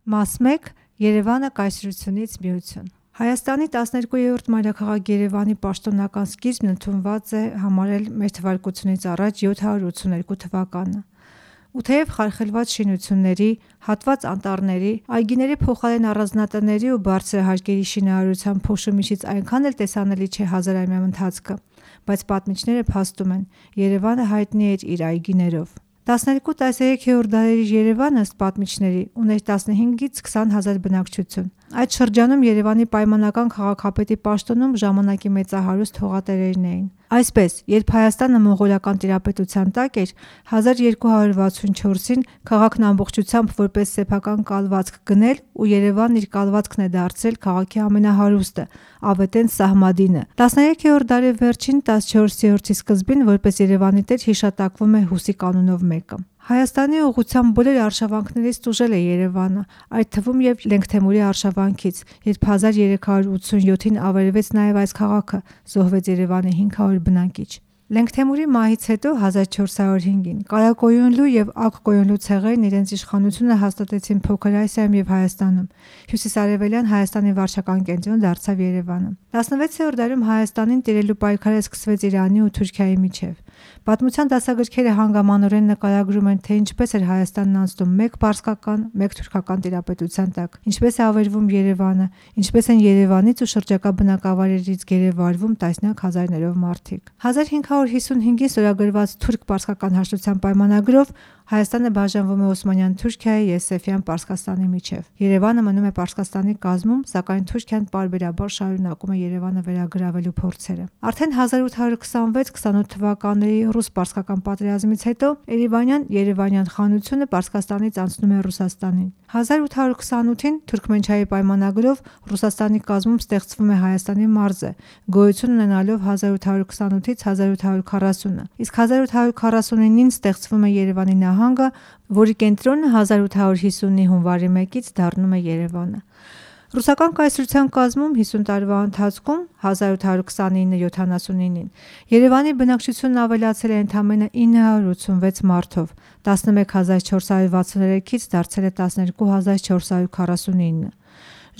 Մաս 1. Երևանը կայսրությունից միություն։ Հայաստանի 12-րդ մայրաքաղաք Երևանի պաշտոնական սկիզբն ընդունված է համարել մ.թ.ա. 782 թվականը։ Ու թեև խարխլված շինությունների, հատված անտառների, այգիների փոխարեն առանձնատների ու բարձր հարկերի շինարարության փոշու-միջից այնքան էլ տեսանելի չէ հազարամյա ընթացքը, բայց պատմիչները փաստում են, Երևանը հայտնի էր իր այգիներով։ 12-13-րդ դարերի Երևանը, ըստ պատմիչների, ուներ 15-ից 20 հազար բնակչություն։ Այդ շրջանում Երևանի պայմանական քաղաքապետի պաշտոնում ժամանակի մեծահարուստ հողատերերն էին։ Այսպես, երբ Հայաստանը մոնղոլական տիրապետության տակ էր, 1264-ին քաղաքն ամբողջությամբ որպես սեփական կալվածք գնել ու Երևանն իր կալվածքն է դարձրել քաղաքի ամենահարուստը, ավետեն Սահմադինը։ 13-րդ դարի վերջին 14-րդի սկզբին որպես Երևանի տեր հիշատակվում է Հուսի կանունով մեկը։ Հայաստանի ուղղությամբ բոլոր արշավանքներից տուժել է Երևանը, այդ թվում և Լենգթեմուրի արշավանքից, երբ 1387-ին ավերվեց նաև այս քաղաքը, զոհվեց Երևանի 500 բնակիչ։ Լենգթեմուրի մահից հետո 1405-ին Կարակոյունլու և Ակ-Կոյունլու ցեղերն իրենց իշխանությունը հաստատեցին Փոքր Ասիայում և Հայաստանում։ Հյուսիսարևելյան Հայաստանի վարչական կենտրոն դարձավ Երևանը։ 16-րդ դարում Հայաստանին տիրելու պայքարը սկսվեց Իրանի ու Թուրքիայի միջև։ Պատմության դասագրքերը հանգամանորեն նկարագրում են, թե ինչպես էր Հայաստանն անցնում մեկ պարսկական, մեկ թուրքական տիրապետության տակ, ինչպես է ավերվում Երևանը, ինչպես են Երևանից ու շրջակա բնակավայրերից գերեվարվում տասնյակ հազարներով մարդիկ։ 1555-ին ստորագրված թուրք-պարսկական հաշտության պայմանագրով Հայաստանը բաժանվում է Օսմանյան Թուրքիայի և Սեֆյան Պարսկաստանի միջև։ Երևանը մնում է Պարսկաստանի կազմում, սակայն Թուրքիան պարբերաբար շարունակում է Երևանը վերագրավելու փորձերը։ Արդեն 1826-28 թվականների ռուս-պարսկական պատերազմից հետո Երևանյան խանությունը Պարսկաստանից անցնում է Ռուսաստանին։ 1828-ին Թուրքմենչայի պայմանագրով Ռուսաստանի կազմում ստեղծվում է Հայաստանի մարզը, գոյություն ունենալով 1828-ից 1840, իսկ 1849-ին ստեղծվում է Երևանի նահանգը, որի կենտրոնը 1850-ի հունվարի 1-ից դառնում է Երևանը։ Ռուսական կայսրության կազմում 50 տարվա ընթացքում 1829-79-ին Երևանի բնակչությունն ավելացել է ընդամենը 986 մարդով, 11463-ից դարձել է 12449։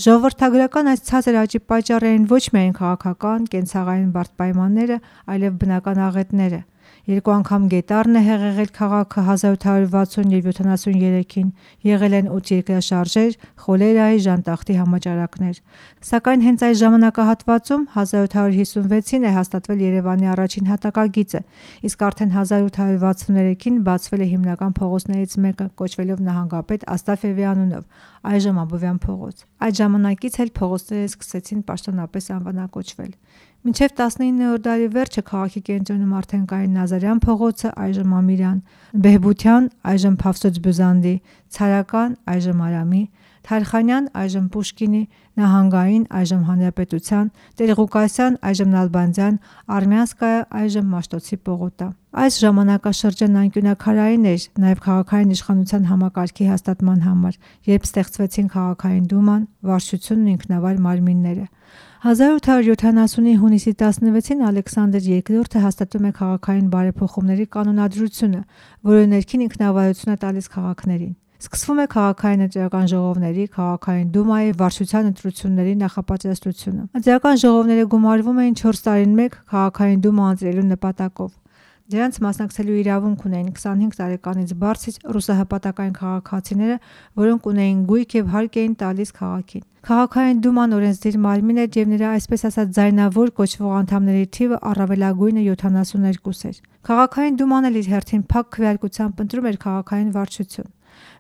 Ժողովրդագրական այս ցածր աճի պատճառ էին ոչ միայն քաղաքական, կենցաղային բարդ պայմանները, այլև բնական աղետները։ Երկու անգամ գետառն է հեղեղել քաղաքը 1860 և 73-ին, եղել են 8 երկրաշարժեր, խոլերայի, ժանտախտի համաճարակներ։ Սակայն հենց այս ժամանակահատվածում 1856-ին է հաստատվել Երևանի առաջին հատակագիծը, իսկ արդեն 1863-ին բացվել է հիմնական փողոցներից մեկը, կոչվելով նահանգապետ Աստաֆьևի անունով, այժմ Աբովյան փողոց։ Այդ ժամանակից էլ փողոցները սկսեցին պաշտոնապես անվանակոչվել։ Մինչև 19-րդ դարի վերջը քաղաքի կենտրոնում արդեն կային Նազարյան փողոցը, այժմ Ամիրյան, Բեհբության, այժմ Փավսոց Բյուզանդի, Ցարական, այժմ Արամի, Թարխանյան, այժմ Պուշկինի, Նահանգային, այժմ Հանրապետության, Տեր-Ղուկասյան, այժմ Նալբանդյան, Արմյանսկայա, այժմ Մաշտոցի պողոտա։ Այս ժամանակաշրջանն անկյունաքարային էր նաև քաղաքային իշխանության համակարգի հաստատման համար, երբ ստեղծվեցին քաղաքային դուման, վարչությունն ու ինքնավար մարմինները։ 1870-ի հունիսի 16-ին Ալեքսանդր II հաստատում է քաղաքային բարեփոխումների կանոնադրությունը, որը ներքին ինքնավարություն է տալիս քաղաքներին։ Սկսվում է քաղաքային ընտրական ժողովների, քաղաքային դումայի, վարչության ընտրությունների նախապատրաստությունը։ Ընտրական ժողովները գումարվում էին 4 տարին մեկ քաղաքային դումա ընտրելու նպատակով։ Դրանց մասնակցելու իրավունք ունեին 25 տարեկանից բարձր ռուսահպատակային քաղաքացիները, որոնք ունեին գույք և հարկ էին տալիս քաղաքին։ Քաղաքային դուման օրենսդիր մարմին էր և նրա այսպես ասած ձայնավոր կոչվող անդամների թիվը առավելագույնը 72 էր։ Քաղաքային դուման էլ իր հերթին փակ քվեարկությամբ ընտրում էր քաղաքային վարչություն։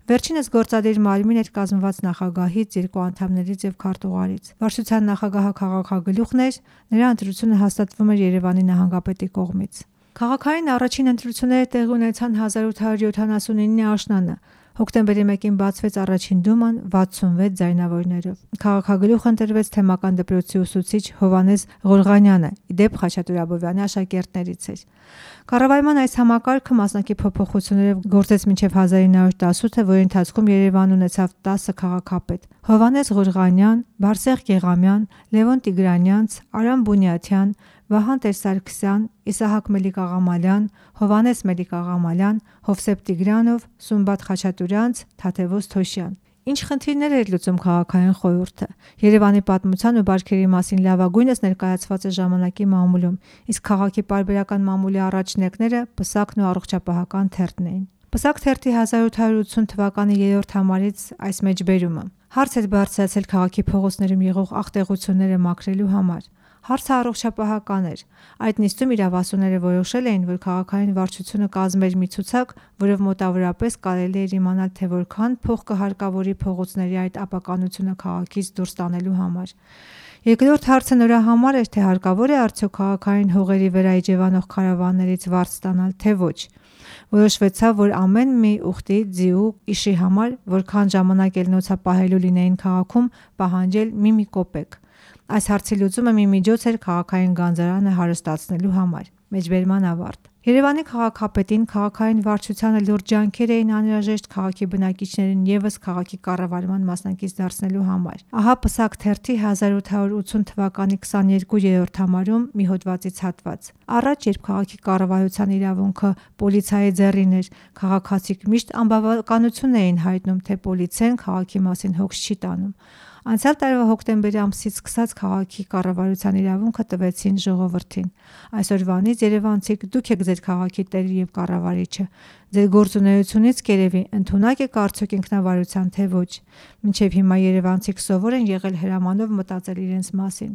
Վերջինս գործադիր մարմին էր կազմված նախագահից, 2 անդամներից և քարտուղարից։ Վարչության նախագահը քաղաքագլուխն էր, նրա ընտրությունը հաստատվում էր Երևանի նահանգապետի կողմից։ Քաղաքային առաջին ընտրությունները տեղի ունեցան 1879-ի աշնանը։ Հոկտեմբերի 1-ին բացվեց առաջին դուման 66 ձայնավորներով։ Քաղաքագլուխ ընտրվեց թեմական դպրոցի ուսուցիչ Հովհաննես Ղորղանյանը, ի դեպ Խաչատուր Աբովյանի աշակերտներից էր։ Կառավարման այս համակարգը մասնակի փոփոխություններով գործեց մինչև 1918-ը, որի ընթացքում Երևանն ունեցավ 10 քաղաքապետ՝ Հովհաննես Ղորղանյան, Բարսեղ Գեղամյան, Լևոն Տիգրանյանց, Արամ Բունյաթյան, Վահան Տեր-Սարգսյան, Իսահակ Մելիք-Աղամալյան, Հովհաննես Մելիք-Աղամալյան, Հովսեփ Տիգրանով, Սումբատ Խաչատուրյանց, Թադևոս Թոշյան։ Ինչ խնդիրներ էր լուծում քաղաքային խորհուրդը։ Երևանի պատմության ու բարքերի մասին լավագույնս ներկայացված է ժամանակի մամուլում, իսկ քաղաքի պարբերական մամուլի առաջնեկները Պսակն ու Առողջապահական թերթն էին։ Պսակ թերթի 1880 թվականի 3-րդ համարից այս մեջբերումը. հարց էր բարձրացել քաղաքի փողոցներում եղող աղտեղությունները մաքրելու համար։ Հարցը առողջապահական էր։ Այդ նիստում իրավասուները որոշել էին, որ քաղաքային վարչությունը կազմեր մի ցուցակ, որով մոտավորապես կարելի էր իմանալ, թե որքան փող կհարկավորի փողոցների այդ ապականությունը քաղաքից դուրս տանելու համար։ Երկրորդ հարցը նրա համար էր, թե հարկավոր է արդյոք քաղաքային հողերի վրա իջևանող քարավաններից վարձ ստանալ, թե ոչ։ Որոշվեցավ, որ ամեն մի ուխտի, ձիու, իշի համար, որքան ժամանակ ելնոցա պահելու լինեին քաղաքում, պահանջել մի կոպեկ։ Այս հարցի լուծումը մի միջոց էր քաղաքային գանձարանը հարստացնելու համար։ Մեջբերման ավարտ։ Երևանի քաղաքապետին քաղաքային վարչությանը լուրջ ջանքեր էին անհրաժեշտ քաղաքի բնակիչներին ևս քաղաքի կառավարման մասնակից դարձնելու համար։ Ահա Պսակ թերթի 1880 թվականի 22-րդ համարում մի հոդվածից հատված։ Առաջ, երբ քաղաքի կառավարության իրավունքը պոլիցիայի ձեռին էր, քաղաքացիք միշտ անբավականություն էին հայտնում, թե պոլիցիան քաղաքի մասին հոգս չի տանում։ Անցյալ տարվա հոկտեմբերի ամսից սկսած քաղաքի կառավարության իրավունքը տվեցին ժողովրդին։ Այսօրվանից երևանցիք դուք եք ձեր քաղաքի տերը եւ կառավարիչը։ Ձեր գործունեությունից կերևի ընդունակ եք արդյոք ինքնավարության, թե ոչ։ Մինչև հիմա երևանցիք սովոր են եղել հրամանով մտածել իրենց մասին։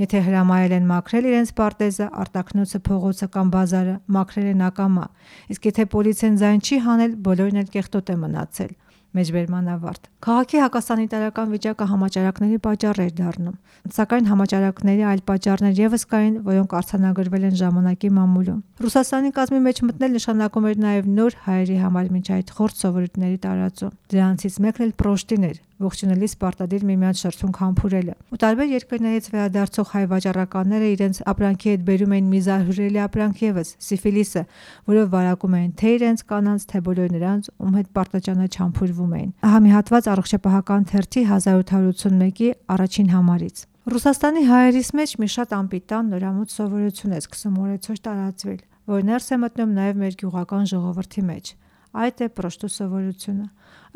Եթե հրամայել են մաքրել իրենց պարտեզը, արտաքնոցը, փողոցը կամ բազարը, մաքրել են ակամա։ Իսկ եթե պոլիցիան ձայն չի հանել, բոլորն էլ կեղտոտ է մնացել։ Մեջբերման ավարտ։ Քաղաքի հակասանիտարական վիճակը համաճարակների պատճառ էր դառնում, սակայն համաճարակների այլ պատճառներ ևս կային, որոնք արձանագրվել են ժամանակի մամուլում։ Ռուսաստանի կազմի մեջ մտնել նշանակում էր նաև նոր հայերի համար մինչ այդ խորտ սովորույթների տարածում։ Դրանցից մեկն էլ պրոշտին էր, ողջունելիս պարտադիր միմյանց շրթունք համբուրելը։ Ու տարբեր երկրներից վերադարձող հայ վաճառականները իրենց ապրանքի հետ բերում էին մի զարհուրելի ապրանք ևս՝ սիֆիլիսը, որով վարակում էին թե իրենց կանանց, թե բոլոր նրանց, ում հետ պարտաճանաչ համբուրվում էին։ Ահա մի հատված Առողջապահական թերթի 1881-ի առաջին համարից։ Ռուսաստանի հայերիս մեջ մի շատ անպիտան նորամուտ սովորություն է սկսում օրեցօր տարածվել, որ ներս է մտնում նաև մեր գյուղական ժողովրդի մեջ։ Այդ է պրոշտու սովորությունը։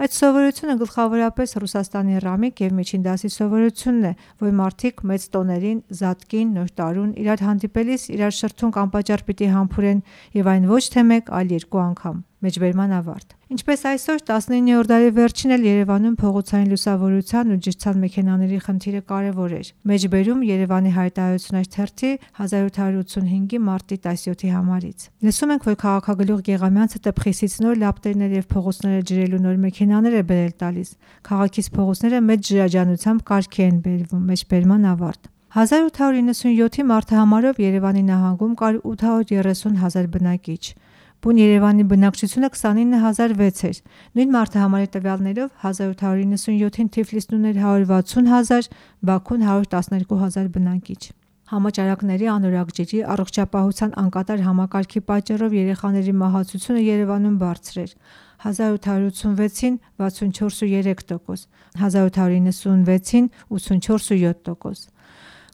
Այդ սովորությունը գլխավորապես Ռուսաստանի ռամիկ եւ միջին դասի սովորությունն է, որ մարդիկ մեծ տոներին, զատկին, նոր տարուն իրար հանդիպելիս իրար շրթունք անպատճառ պիտի համբուրեն եւ այն ոչ թե մեկ, այլ երկու անգամ։ Մեջբերման ավարտ։ Ինչպես այսօր 19-րդ դարի վերջին էլ Երևանում փողոցային լուսավորության ու ջրցան մեքենաների խնդիրը կարևոր էր։ Մեջբերում Երևանի հայտարարություններ թերթի 1785-ի մարտի 17-ի համարից։ Լսում ենք, որ քաղաքագլուխ Գեղամյանցը տպխիսից նոր լապտերներ եւ փողոցները ջրելու նոր մեքենաներ է բերել տալիս։ Քաղաքից փողոցները մեծ ջրաջանությամբ կարգի են բերվում։ Մեջբերման ավարտ։ 1897-ի մարտահամարով Երևանի նահանգում կար 830,000 բնակիչ։ Բուն Երևանի բնակչությունը 29,006 էր։ Նույն մարտահամարի տվյալներով 1897-ին Թիֆլիսն ուներ 160,000, Բաքուն 112,000 բնակիչ։ Համաճարակների, անորակ ջրի, առողջապահության անկատար համակարգի պատճառով երեխաների մահացությունը Երևանում բարձր էր։ 1886-ին 64,3%, 1896-ին 84,7%։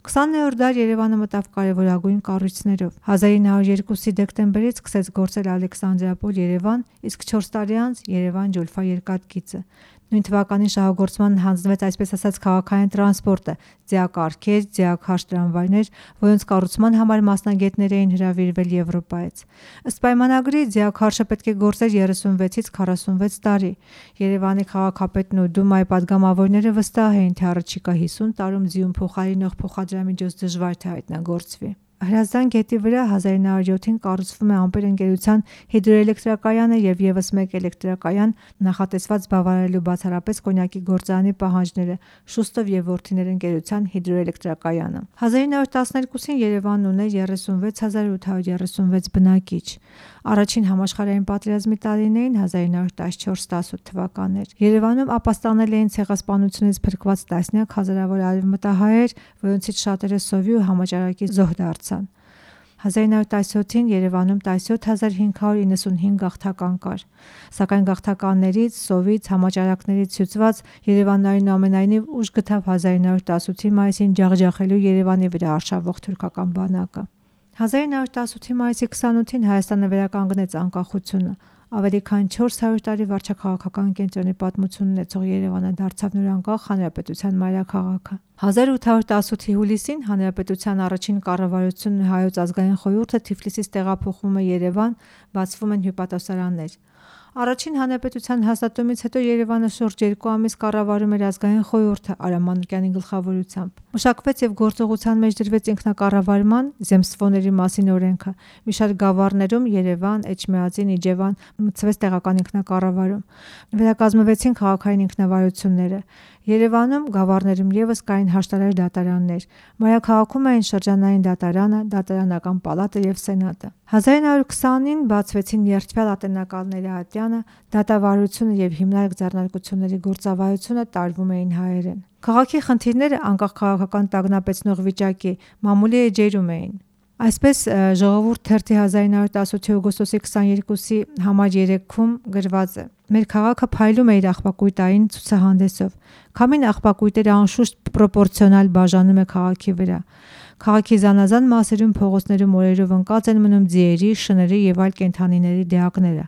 20-րդ դար Երևանը մտավ կարևորագույն կառույցներով։ 1902-ի դեկտեմբերից սկսեց գործել Ալեքսանդրապոլ-Երևան, իսկ 4 տարի անց Երևան-Ջուլֆա երկաթգիծը։ Նույն թվականին շահագործման հանձնվեց այսպես ասած քաղաքային տրանսպորտը, ձիակառքեր, ձիաքարշ տրամվայներ, որոնց կառուցման համար մասնագետներ էին հրավիրվել Եվրոպայից։ Ըստ պայմանագրի ձիաքարշը պետք է գործեր 36-ից 46 տարի։ Երևանի քաղաքապետն ու Դումայի падգամավորները վստահ էին, թե առաջիկա 50 տարում ձիուն փոխարինող փոխադրամիջոց դժվար թե հայտնագործվի։ Հրազդան գետի վրա 1907-ին կառուցվում է Ամպեր ընկերության հիդրոէլեկտրակայանը եւ եւս մեկ էլեկտրակայան, նախատեսված բավարարելու բացառապես կոնյակի գործարանի պահանջները, Շուստով եւ որդիներ ընկերության հիդրոէլեկտրակայանը։ 1912-ին Երևանն ուներ 36,836 բնակիչ։ Առաջին համաշխարհային պատերազմի տարիներին 1914-18 թվականներ։ Երևանում ապաստանել էին ցեղասպանությունից փրկված տասնյակ հազարավոր արևմտահայեր, որոնցից շատերը սովի ու համաճարակի զոհ դարձան։ 1917-ին Երևանում 17595 գաղթական կար, սակայն գաղթականներից, սովից, համաճարակներից հյուծված Երևանն այնուամենայնիվ ուժ գտավ 1918-ի մայիսին ջախջախելու Երևանի վրա արշավող թուրքական բանակը։ 1918-ի մայիսի 28-ին Հայաստանը վերականգնեց անկախությունը։ Ավելի քան 400 տարի վարչաքաղաքական կենտրոնի պատմություն ունեցող Երևանը դարձավ նոր անկախ հանրապետության մայրաքաղաքը։ 1818-ի հուլիսին հանրապետության առաջին կառավարությունն Հայոց ազգային խորհուրդը Թիֆլիսից տեղափոխվում է Երևան, բացվում են հյուպատոսարաններ։ Առաջին հանրապետության հաստատումից հետո Երևանը շուրջ 2 ամիս կառավարում էր ազգային խորհուրդը Արամ Մանուկյանի գլխավորությամբ։ Մշակվեց եւ գործողության մեջ դրվեց ինքնակառավարման զեմստվոների մասին օրենքը։ Մի շարք գավառներում Երևան, Էջմիածին, Իջևան մտցվեց տեղական ինքնակառավարում։ Վերակազմվեցին քաղաքային ինքնավարությունները։ Երևանում գավառներում եւս կային հաշտարար դատարաններ։ Մայրաքաղաքում էին շրջանային դատարանը, դատարանական պալատը եւ սենատը։ 1920-ին բացվեցին երդվյալ ատենակալների ատյանը, դատավարությունը եւ հիմնարկ ձեռնարկությունների գործավարությունը տարվում էին հայերեն։ Քաղաքի խնդիրները անկախ քաղաքական տագնապեցնող վիճակի մամուլի էջերում էին։ Այսպես Ժողովուրդ թերթի 1918 օգոստոսի 22-ի համար 3-ում գրված է. Մեր քաղաքը փայլում է իր աղբակույտային ցուցահանդեսով։ Քամին աղբակույտերը անշուշտ պրոպորցիոնալ բաժանում է քաղաքի վրա։ Քաղաքի զանազան մասերում փողոցներում օրերով ընկած են մնում ձիերի, շների եւ այլ կենդանիների դիակները։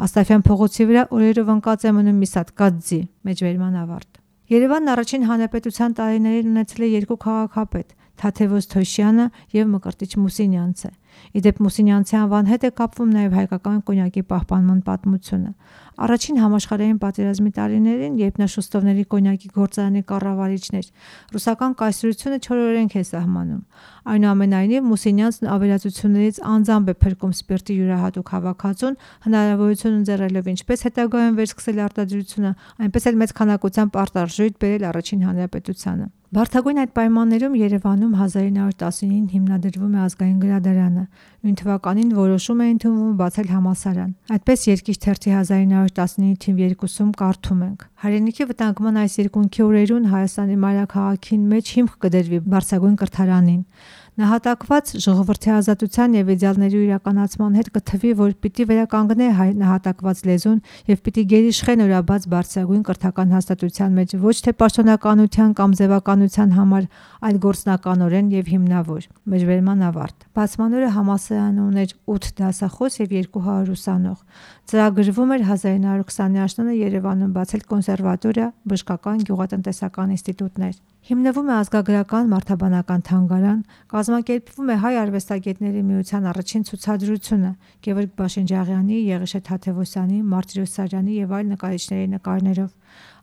Աստաֆյան փողոցի վրա օրերով ընկած է մնում մի սատկած ձի։ Մեջբերման ավարտ։ Երևանն առաջին հանրապետության տարիներին ունեցել է 2 քաղաքապետ՝ Թաթևոս Թոշյանը եւ Մկրտիչ Մուսինյանցը։ Իդեպ Մուսինյանցի անվան հետ է կապվում նաեւ հայկական կոնյակի պահպանման պատմությունը։ Առաջին համաշխարհային պատերազմի տարիներին, երբ նա շուստովների կոնյակի գործարանի կառավարիչն էր, ռուսական կայսրությունը չորօրենք է սահմանում։ Այնուամենայնիվ Մուսինյանցն ավերածություններից անձամբ է փրկում սպիրտի յուրահատուկ հավաքածուն, հնարավորություն ընձեռելով ինչպես հետագայում վերսկսել արտադրությունը, այնպես էլ մեծ քանակությամբ արտարժույթ բերել առաջին հանրապետությանը։ Բարդագույն այդ պայմաններում Երևանում 1919-ին հիմնադրվում է ազգային գրադարանը։ Նույն թվականին որոշում է ընդունվում բացել համալսարան։ Այդպես Երկիր թերթի 1919 թիվ 2-ում կարդում ենք. Հայրենիքի վտանգման այս երկունքի օրերուն Հայաստանի մայրաքաղաքին մեջ հիմք կդրվի բարձրագույն կրթարանին։ Նահատակված ժողովրդի ազատության եւ իդեալների իրականացման հետ կթվի, որ պիտի վերականգնե հայ նահատակված լեզուն եւ պիտի գերիշխե նորաբաց բարձրագույն կրթական հաստատության մեջ ոչ թե պաշտոնականության կամ ձևականության համար, այլ գործնականորեն եւ հիմնավոր։ Մեջբերման ավարտ։ Բացման օրը համալսարանը ուներ 8 դասախոս եւ 200 ուսանող։ Ծրագրվում էր 1920-ի աշնանը Երևանում բացել կոնսերվատորիա, բժշկական, գյուղատնտեսական ինստիտուտներ։ Հիմնվում է ազգագրական մարդաբանական թանգարան, կազմակերպվում է հայ արվեստագետների միության առաջին ցուցադրությունը Գևորգ Բաշինջաղյանի, Եղիշե Թաթևոսյանի, Մարտիրոս Սարյանի եւ այլ նկարիչների նկարներով։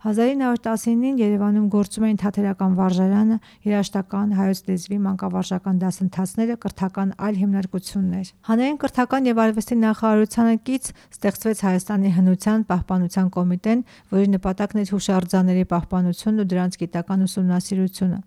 1919-ին Երևանում գործում էին թատերական վարժարանը, երաժշտական, հայոց լեզվի, մանկավարժական դասընթացները, կրթական այլ հիմնարկություններ։ Հանրային կրթական եւ արվեստի նախարարությանը կից ստեղծվեց Հայաստանի հնության պահպանության կոմիտեն, որի նպատակն էր հուշարձանների պահպանությունն ու դրանց գիտական ուսումնասիրությունը։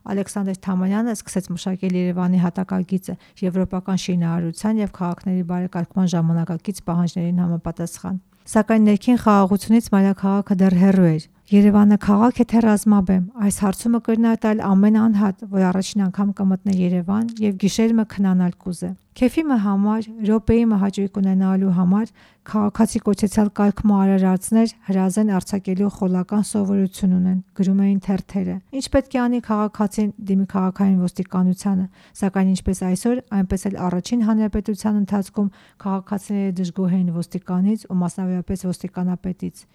Ալեքսանդր Թամանյանը սկսեց մշակել Երևանի հատակագիծը եվրոպական շինարարության եւ քաղաքների բարեկարգման ժամանակակից պահանջներին համապատասխան։ Սակայն ներքին խաղաղությունից մայրաքաղաքը դեռ հեռու էր։ Երևանը քաղաք է թե ռազմաբեմ, այս հարցումը կրնատալ ամեն անհատ, որ առաջին անգամ կմտնե Երևան եւ գիշերմը քնանալ կուզե։ Քեֆիմը համար, րոպեիմը հաճույք ունենալու համար քաղաքացի կոչեցյալ կարգմու արարածներ հրազեն արձակելու խոլական սովորություն ունեն, գրում էին թերթերը։ Ինչ պետք է անի քաղաքացին դիմի քաղաքային ոստիկանությանը, սակայն ինչպես այսօր, այնպես էլ առաջին հանրապետության ընթացքում քաղաքացիները դժգոհ էին ոստիկանից ու մասնավորապես ոստիկանապետից։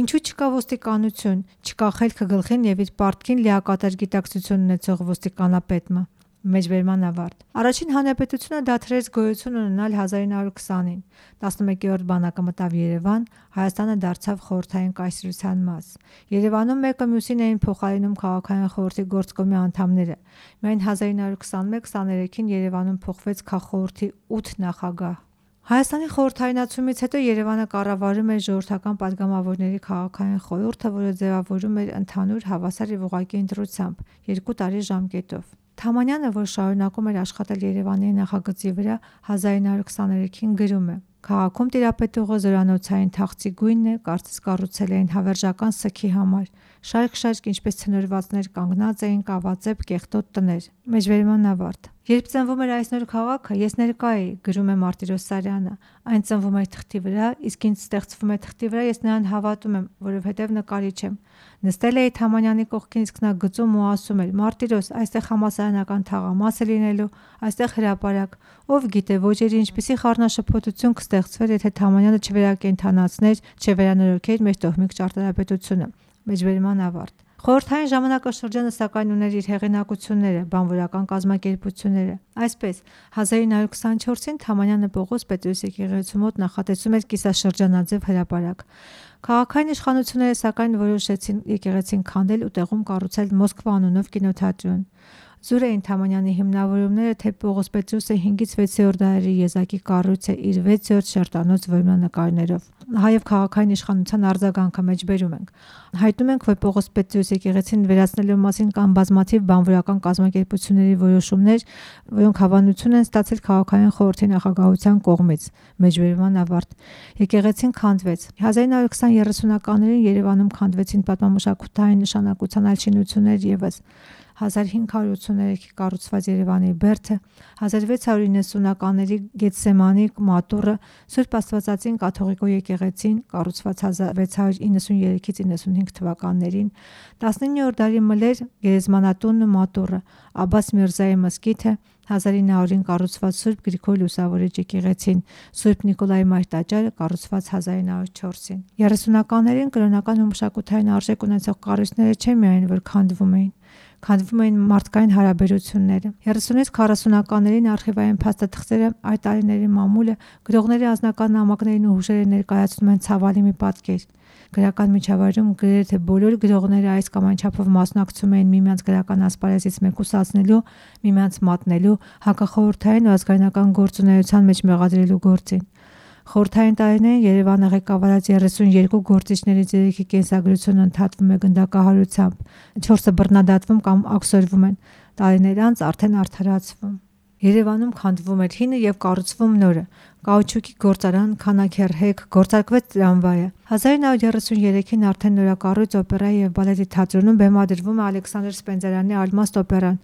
Ինչու չկա ոստիկանություն, չկա խելքը գլխին եւ իր պարտքին լիակատար գիտակցություն ունեցող ոստիկանապետը։ Մեջբերման ավարտ։ Առաջին հանրապետությունը դադարեց գոյություն ունենալ 1920-ին։ 11-րդ բանակը մտավ Երևան, Հայաստանը դարձավ խորհրդային կայսրության մաս։ Երևանում մեկը մյուսին էին փոխարինում քաղաքային խորհրդի գործկոմի անդամները։ Միայն 1921-23-ին Երևանում փոխվեց քաղխորհրդի 8 նախագահ։ Հայաստանի խորհրդայնացումից հետո Երևանը կառավարում էր ժողովրդական падգամավորների քաղաքային խորհուրդը, որը ձևավորում էր ընդհանուր հավասար եւ ուղղակի ընտրությամբ 2 տարի ժամկետով։ Թամանյանը, որ շարունակում էր աշխատել Երևանի նախագծի վրա, 1923-ին գրում է. Քաղաքում տիրապետողը զորանոցային թախծի գույնն է, կարծես կառուցել էին հավերժական սգի համար։ Շարք-շարք ինչպես ցնորվածներ կանգնած էին կավածեպ կեղտոտ տներ։ Մեջբերման ավարտ։ Երբ ծնվում էր այս նոր քաղաքը, ես ներկա էի, գրում է Մարտիրոս Սարյանը։ Այն ծնվում էր թղթի վրա, իսկ ինձ ստեղծվում է թղթի վրա, ես նրան հավատում եմ, որովհետև նկարիչ եմ։ Նստել էի Թամանյանի կողքին, իսկ նա գծում ու ասում էր. «Մարտիրոս, այստեղ համալսարանական թաղամաս է լինելու, այստեղ հրապարակ»։ Ով գիտե, ոչերի ինչպիսի խառնաշփոթություն կստեղծվեր, եթե Թամանյանը չվերակենդանացներ, չվերանորոգեր մեր տոհմիկ ճարտարապետությունը։ Մեջբերման ավարտ։ Խորհրդային ժամանակաշրջանը սակայն ուներ իր հեղինակությունները, բանվորական կազմակերպությունները։ Այսպես 1924-ին Թամանյանը Պողոս Պետրոս եկեղեցու մոտ նախատեսում էր կիսաշրջանաձև հրապարակ։ Քաղաքային իշխանությունները սակայն որոշեցին եկեղեցին քանդել ու տեղում կառուցել Մոսկվա անունով կինոթատրոն։ Զուր էին Թամանյանի հիմնավորումները, թե Պողոս Պետրոսը 5-ից 6-րդ դարերի եզակի կառույց է իր 6-րդ շերտանոց որմնանկարներով։ Հայև քաղաքային իշխանության արձագանքը մեջբերում ենք։ Հայտնում ենք, որ Պողոս Պետրոս եկեղեցին վերացնելու մասին կան բազմաթիվ բանվորական կազմակերպությունների որոշումներ, որոնք հավանություն են ստացել քաղաքային խորհրդի նախագահության կողմից։ Մեջբերման ավարտ։ Եկեղեցին քանդվեց։ 1920-30-ականներին Երևանում քանդվեցին պատմամշակութային նշանակության այլ շինություններ ևս։ 1583-ի կառուցված Երևանի բերդը, 1690-ականների Գեթսեմանի մատուռը, Սուրբ Աստվածածին կաթողիկո եկեղեցին, կառուցված 1693-ից 95 թվականներին, 19-րդ դարի մլեր գերեզմանատունն ու մատուռը, Աբբաս Միրզայի մզկիթը, 1900-ին կառուցված Սուրբ Գրիգոր Լուսավորիչ եկեղեցին, Սուրբ Նիկոլայ Մայր տաճարը կառուցված 1904-ին։ 30-ականներին կրոնական ու մշակութային արժեք ունեցող կառույցները չէ միայն որ քանդվում էին մարդկային հարաբերությունները։ 30-ից 40-ականներին արխիվային փաստաթղթերը, այդ տարիների մամուլը, գրողների անձնական նամակներին ու հուշերը ներկայացնում են ցավալի մի պատկեր։ Գրական միջավայրում գրեթե բոլոր գրողները այս կամ այն չափով մասնակցում էին միմյանց գրական ասպարեզից մեկուսացնելու, միմյանց մատնելու, հակախորհրդային ու ազգայնական գործունեության մեջ մեղադրելու գործին։ Խորհրդային տարիներին Երևանը ղեկավարած 32 գործիչներից 3-ի կենսագրությունը ընդհատվում է գնդակահարությամբ, 4-ը բռնադատվում կամ աքսորվում են, տարիներ անց արդեն արդարացվում։ Երևանում քանդվում էր հինը եւ կառուցվում նորը։ Կաուչուկի գործարան, քանաքեռհեկ, գործարկվեց տրամվայը։ 1933-ին արդեն նորակառույց օպերայի եւ բալետի թատրոնում բեմադրվում է Ալեքսանդր Սպենդիարյանի Ալմաստ օպերան։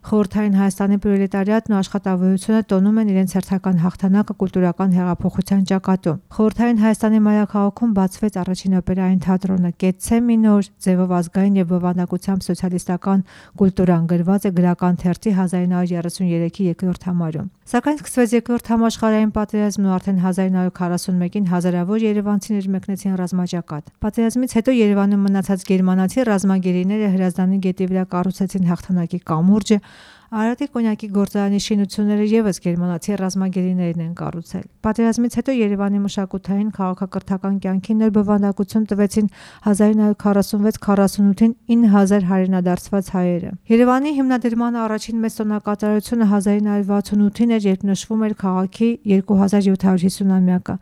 Խորհրդային Հայաստանի պրոլետարիատն ու աշխատավորությունը տոնում են իրենց հերթական հաղթանակը կուլտուրական հեղափոխության ճակատում։ Խորհրդային Հայաստանի մայրաքաղաքում բացվեց առաջին օպերային թատրոնը Կեցցե մինոր, ձևով ազգային եւ բովանդակությամբ սոցիալիստական կուլտուրան գրված է գրական թերթի 1933-ի երկրորդ համարում։ Սակայն սկսվեց երկրորդ համաշխարհային պատերազմն ու արդեն 1941-ին հազարավոր երևանցիներ մեկնեցին ռազմաճակատ։ Պատերազմից հետո Երևանում մնացած գերմանացի ռազմագերիները Հրազդանի գետի վրա կառուցեցին հաղթանակի կամուրջը, Արարատի կոնյակի գործարանի շինությունները ևս գերմանացի ռազմագերիներն են կառուցել։ Պատերազմից հետո Երևանի մշակութային քաղաքակրթական կյանքին նոր բովանդակություն տվեցին 1946-48-ին 9000 հայրենադարձված հայերը։ Երևանի հիմնադրման առաջին մեծ տոնակատարությունը 1968-ին էր, երբ նշվում էր քաղաքի 2750-ամյակը։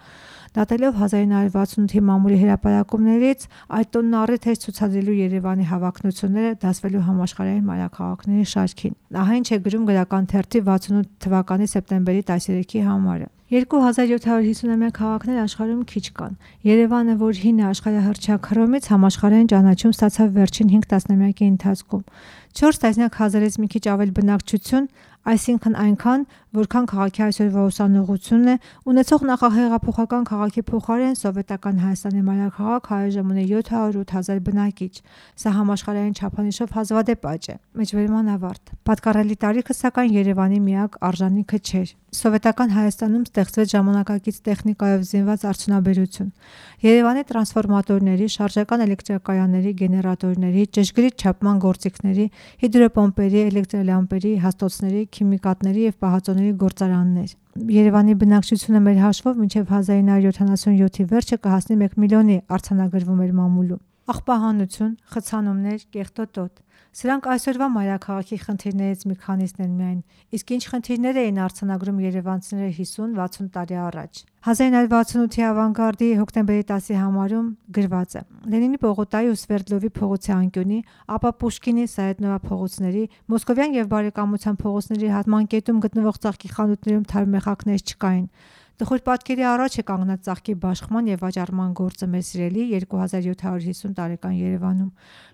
Դատելով 1968-ի մամուլի հրապարակումներից այդ տոնն առիթ էր ցուցադրելու Երևանի հավակնությունները դասվելու համաշխարհային մայրաքաղաքների շարքին։ Ահա ինչ է գրում գրական թերթի 68 թվականի սեպտեմբերի 13-ի համարը։ 2750-ամյա քաղաքներ աշխարհում քիչ կան։ Երևանը, որ հին է աշխարհահռչակ Հռոմից, համաշխարհային ճանաչում ստացավ վերջին 5 տասնամյակի ընթացքում։ 4 տասնյակ հազարից մի քիչ ավել բնակչություն, այսինքն այնքան, որքան քաղաքի այսօրվա ուսանողությունն է, ունեցող նախահեղափոխական քաղաքի փոխարեն սովետական Հայաստանի մայրաքաղաք այժմ ունի 708,000 բնակիչ։ Սա համաշխարհային չափանիշով հազվադեպ աճ է։ Մեջբերման ավարտ։ Պատկառելի տարիքը սակայն Երևանի միակ արժանիքը չէր։ Սովետական Հայաստանում ստեղծվեց ժամանակակից տեխնիկայով զինված արդյունաբերություն։ Երևանի տրանսֆորմատորների, շարժական էլեկտրակայանների, գեներատորների, ճշգրիտ չափման գործիքների, հիդրոպոմպերի, էլեկտրոլամպերի, հաստոցների, քիմիկատների եւ պահածոների գործարաններ։ Երևանի բնակչությունը մեր հաշվով մինչև 1977-ի վերջը կհասնի 1 միլիոնի, արձանագրվում էր մամուլում։ Աղբահանություն, խցանումներ, կեղտոտոտ։ Սրանք այսօրվա մայրաքաղաքի խնդիրներից մի քանիսն են միայն, իսկ ինչ խնդիրներ էին արձանագրում երևանցիները 50-60 տարի առաջ։ 1968-ի ավանգարդի հոկտեմբերի 10-ի համարում գրված է. Լենինի պողոտայի ու Սվերդլովի փողոցի անկյունի, ապա Պուշկինի, Սայեդնովա փողոցների, Մոսկովյան եւ Բարեկամության փողոցների հատմանկետում գտնվող ծաղկի խանութներում թարմեխակներ չկային։ Տխուր պատկերի առաջ է կանգնած ծաղկի բաշխման եւ վաճառման գործը մեր սիրելի 2750 տարեկան Երևանում։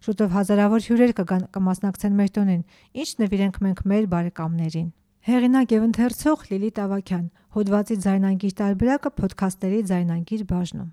Շուտով հազարավոր հյուրեր կմասնակցեն մեր տոնին, ինչ նվիրենք մենք մեր բարեկամներին։ Հեղինակ եւ ընթերցող Լիլիթ Ավագյան։ Հոդվածի ձայնանգիր տարբերակը փոդքասթերի ձայնանգիր բաժնում։